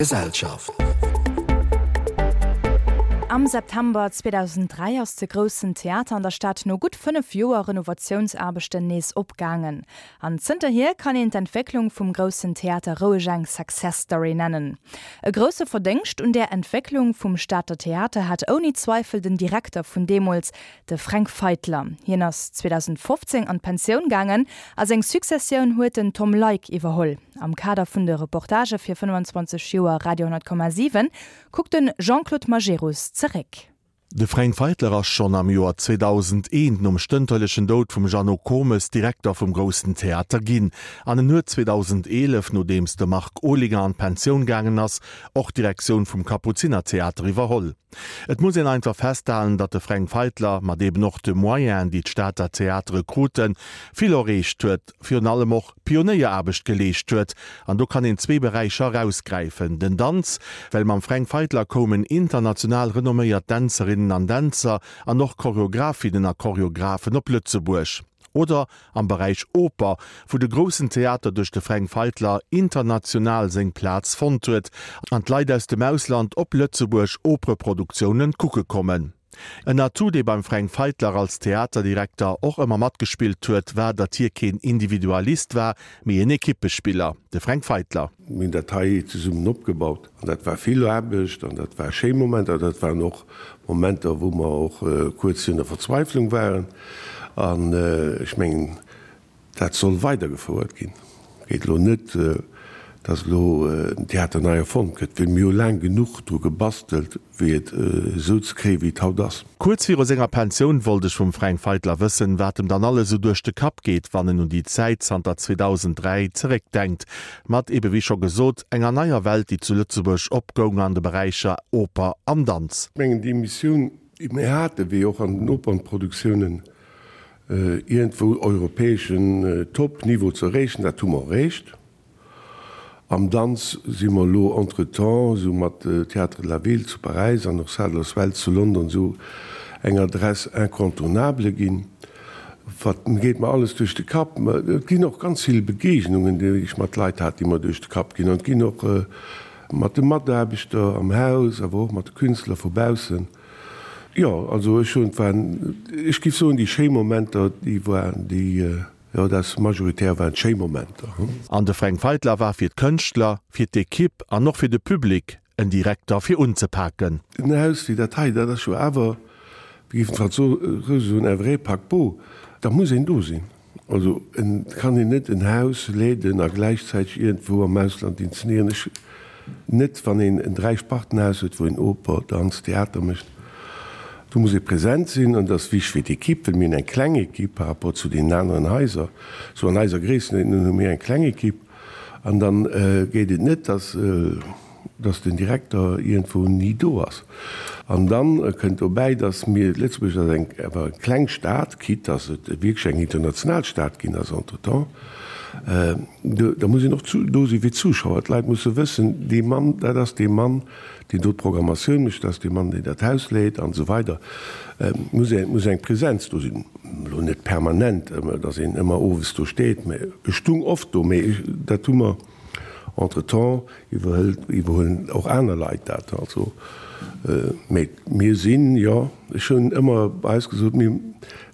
Gesellschaft. Am September 2003 ass de Groussen Theater an der Stad no gutt 5 Joer Renovatiounsaarbechten nees opgaangen. An zënterhier kann een d'Entwécklung vum Groussen Theater roueg eng Success Story nennen. E grousse Verdéngscht un där Entwécklung vum Stater Theater hat ouni Zweifel den Direkter vun deemools, De Fränk Feitler, hien ass 2015 an d'Pensioun gaangen a seng Successioun huet den Tom Leick iwwerholl. Am Kader vun de Reportagë fir 25 Joer Radio 10,7 kuckt de Jean-Claude Majerus zeréck. De Fränk Feitler ass schonn am Joer 2001, nom stënterlechen Doud vum Jeannot Komes, Direkter vum Groussen Theater ginn. An en huet 2011, nodeems de Marc Olinger an d'Pensioun gaangen ass, och d'Direktioun vum Kapuzinertheater iwwerholl. Et muss een einfach festhalen, datt de Fränk Feitler, mat eben och de Moyenen, déi d'Stater Theatere kruten, vill erreecht huet, virun allem och Pionéieraarbecht geleescht huet. An do kann een zwee Beräicher erausgräifen, den Danz, well mam Fränk Feitler koumen international renomméiert Dänzerinnen an Dänzer an och Choreografinnen a Choreografen op Lëtzebuerg. Oder am Beräich Oper, wou de Groussen Theater duerch de Fränk Feitler international seng Plaz fonnt huet an d'Leit aus dem Ausland op Lëtzebuerg Opereproduktiounen kucke kommen. En Atout, dee beim Fränk Feitler als Theaterdirekter och ëmmer matgespillt huet, war, datt hie keen Individualist war, mee en Ekippespiller. De Fränk Feitler. Mir hunn dat hei zesummen opgebaut an dat war vill Aarbecht an dat war schéi Momenter. Dat waren och Momenter, wou mer och kuerz virun der Verzweiflung waren. An ech mengen, dat soll weidergefouert ginn. Et geet elo net, dass elo den Theater nei erfonnt gëtt, well mir hu laang genuch dru gebastelt, wéi et esou ze kréien, wéi et haut ass. Kuerz viru senger Pensioun wollt ech vum Fränk Feitler wëssen, wat em dann alles esou duerch de Kapp geet, wann en un déi Zäit zanter 2003 zeréckdenkt, mat ebe wéi scho gesot, enger neier Welt, déi zu Lëtzebuerg opgoung an de Beräicher Oper an Danz. Ech mengen, déi Missioun, déi mir haten, wéi och an den Opernproduktiounen, iergendwou europäeschen Top-Niveau ze erreechen, dat hu mer erreecht. Am Danz si mer elo entretemps esou mat Théâtre de la Ville zu Paräis an och Sadler's Wells zu London esou eng Adresse incontournable ginn. Wat geet mer alles duerch de Kapp? Et ginn och ganz vill Begegnungen, déi ech mat Leit hat, déi mer duerch de Kapp ginn. An et ginn och mat de Mataarbechter am Haus, awer och mat de Künstler vu baussen. Jo, also ech hunn, et waren, ech géif soen, déi schéi Momenter, déi waren déi. Jo, dat ass majoritär waren schéi Momenter. An de Fränk Feitler war fir d'Kënschtler, fir d'Ekipp an och fir de Public en Direkter fir unzepaken. En Haus wéi dat hei, dat ass jo awer, wéi géifen d'Fransouse soen, un vrai paquebot, da muss een do sinn. Also et kann een net en Haus leeden a gläichzäiteg iergendwou am Ausland inzenéieren. Ech Net wann een en Dräispartenhaus huet, wou een Oper, Danz, Theater mécht. Do muss ee present sinn an dat ass wichteg fir d'Ekipp, well mir hunn eng kleng Ekipp par rapport zu deenen aneren Haiser. Sou an eiser Gréisstenuerdnung hu mir eng kleng Ekipp an da geet et net, dass dass den Direkter iergendwou ni do ass. An da kënnt dobäi, dass mir, Lëtzebuerg ass eng awer eng kleng Stad, quitte dass et wierklech eng international Stad ginn ass entretemps, Da muss een och do si fir d'Zuschauer. D'Leit musse wëssen, dee Mann, dat ass dee Mann, deen do d'Programmatioun mécht, dat ass dee Mann, deen dat Haus leet an esou weider. Et muss eng, muss eng Präsenz do sinn. Elo net permanent, datt een ëmmer owes do steet, mä ech stung oft do. Mä dat hu mer entretemps iwwerhëlt, iwwerhuelen och aner Leit dat. Also, mä mir sinn, jo, ech hunn ëmmer bei eis gesot, mir,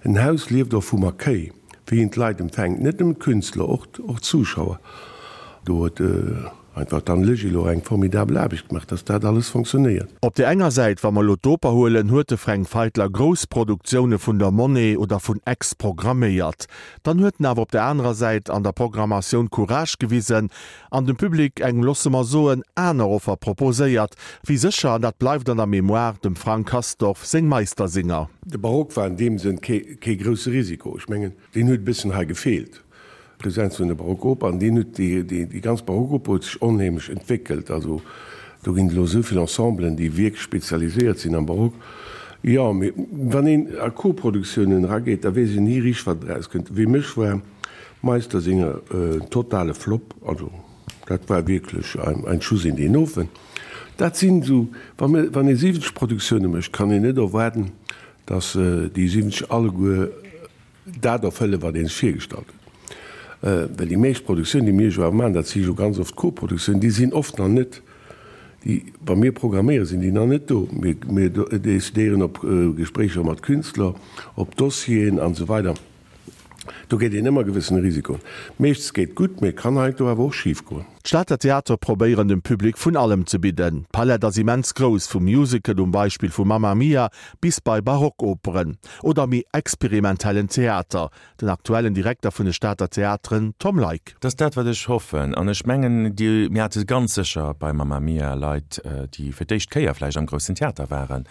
en Haus lieft och vum Accueil. Wéi een d'Leit empfänkt, net nëmmen d'Künstler, och och d'Zuschauer. Do huet einfach d'Anne Legil och eng formidabel Aarbecht gemaach, dass dat alles fonctionnéiert. Op där enger Säit, wa mer elo d'Oper huelen, huet de Fränk Feitler grouss Produktioune vun der Monnaie oder vun Aix programméiert. Dann huet en awer op der anerer Säit an der Programmatioun Courage gewisen an dem Public eng, loosse mer soen, aner Offer proposéiert, wéi sécher, an dat bleift an der Mémoire, dem Frank Castorf seng Meistersinger. De Barock war an deem Sënn kee grousse Risiko. Ech mengen, deen huet e bëssen hei gefeelt, d'Presenz vun der Barockoper. An deen huet, déi ganz Barockoper huet sech onheemlech entwéckelt. Also do ginn et elo esou vill Ensemblen, déi wierklech spezialiséiert sinn am Barock. Jo, mee wann een a Koproduktiounen erageet, da weess een ni richteg, wat erauskënnt. Wéi mech war Meistersinger en totale Flop, also dat war wierklech ein Schuss in den Ofen. Dat sinn esou, wann ee 70 Produktioune mécht, kann een net erwaarden, datt déi 70 alleguer dat erfëllen, wat ee sech virgestallt huet. Well déi meescht Produktiounen, déi mir jo awer maachen, dat si jo ganz oft Koproduktiounen, déi sinn oft nach net. Déi, wa mir programméieren, sinn déi nach net do. Mir, mir decidéieren op Gespréicher mat Künstler, op Dossieren an esou weider. Do geet een ëmmer gewëssene Risikoen. Meeschtens geet gutt, mee et kann heiansdo awer och schif goen. D'Stater Theatere probéieren dem Public vun allem ze bidden. D'Palett ass immens grouss, vum Musical um Beispill vu Mamma Mia bis bei Barockoperen oder méi experimentellen Theater. Den aktuellen Direkter vun de Stater Theateren, Tom Leick. Dat ass dat, wat ech hoffen. An ech mengen, déi, mir hate ganz sécher bei Mamma Mia Leit, déi fir d'éischt Kéier vläicht am Groussen Theater waren.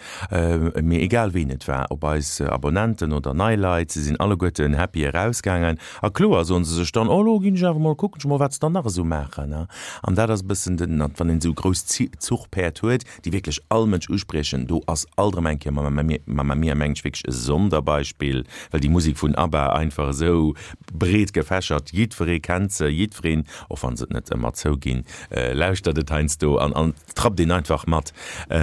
Mee egal ween et war, ob eis Abonnenten oder nei Leit, se sinn alleguerten happy erausgaangen. A kloer soen se sech dann, oh lo ginn ech awer mol kucken ech mol, wat se dann nach esou maachen. An dat ass e bëssen den, wann een esou grouss Zuchpäerd huet, déi wierklech all Mënsch uspriechen, do ass alt erëm eng Kéier Mamma Mia, mengen ech, wierklech e Sonderbeispill, well déi Musek vun ABBA einfach esou breet gefächert, jiddweree kennt se, jiddwereen, och wann se et net ëmmer zouginn, lauschtert et heiansdo an an trappt een einfach mat.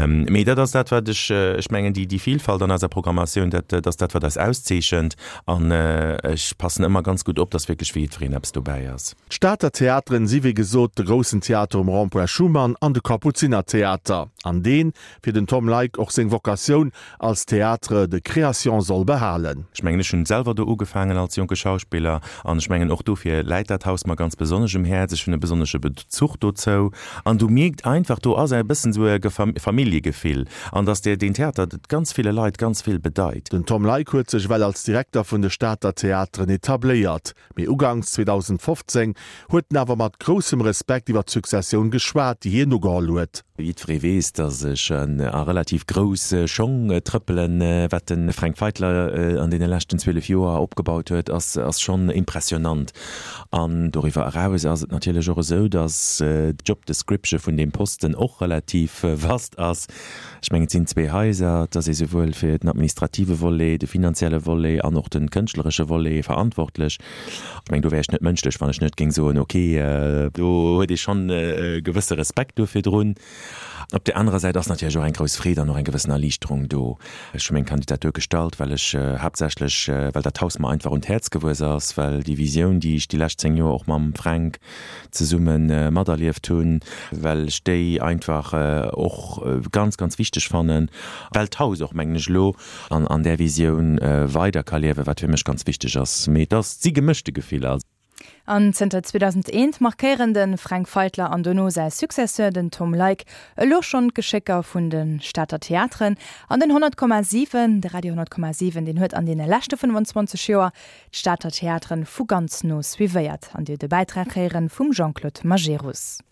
Mee dat ass dat, wat ech, ech mengen, déi Vilfalt an eiser Programmatioun, dat ass dat, wat eis auszeechent an ech passen ëmmer ganz gutt op, dass wierklech fir jiddwereen eppes dobäi ass. D'Stater Theateren si wéi gesot de Groussen Theater um Rond-point Schuman an de Kapuzinertheater, an deen fir den Tom Leick och seng Vocatioun als Théâtre de création soll behalen. Ech mengen, ech hunn selwer do ugefaangen als jonke Schauspiller an ech mengen och dofir läit dat Haus mer ganz besonnesch um Häerz. Ech hunn e besonnesche Bezuch dozou an du mierkt einfach, do ass e bëssen esou e Familljegefill an dass deen Theater ganz ville Leit ganz vill bedeit. Den Tom Leick huet sech ewell als Direkter vun de Stater Theateren etabléiert. Mee uganks 2015 huet en awer mat groussem Respekt iwwer d'Successioun geschwat, déi hien ugeholl huet. Jiddweree weess, datt ech a relativ grouss Schong trëppelen. Wat de Fränk Feitler an deene leschten 12 Joer opgebaut huet, ass schonn impressionant. An doriwwer eraus ass et natierlech och esou, datt d'Job description vun deem Posten och relativ vast ass. Ech mengen, et sinn zwee Haiser, et ass ee souwuel fir den administrative Volet, de finanzielle Volet an och de kënschtleresche Volet verantwortlech. Ech mengen, do wär ech net mënschlech, wann ech net géing soen, okay, do huet ee schonn e gewësse Respekt do virdrun. Op där anerer Säit ass natierlech och eng grouss Freed an och eng gewëssen Erliichterung do. Ech hu meng Kandidatur gestallt, well ech haaptsächlech, well dat Haus mer einfach un d'Häerz gewuess ass, well déi Visioun, déi ech déi lescht 10 Joer och mam Fränk zesumme materlieft hunn, well ech déi einfach och ganz, ganz wichteg fannen, well d'Haus och, mengen ech, elo an där Visioun weider ka liewen, wat fir mech ganz wichteg ass. Mee et ass, et si gemëschte Gefiller. An zënter 2001 markéieren de Fränk Feitler an dono säi Successeur, den Tom Leick, elo schonn d'Geschécker vun de Stater Theateren. An den 100,7, de Radio 100,7, deen huet an deene leschte 25 Joer d'Stater Theateren vu ganz no suivéiert an Dir de Bäitrag héieren vum Jean-Claude Majerus.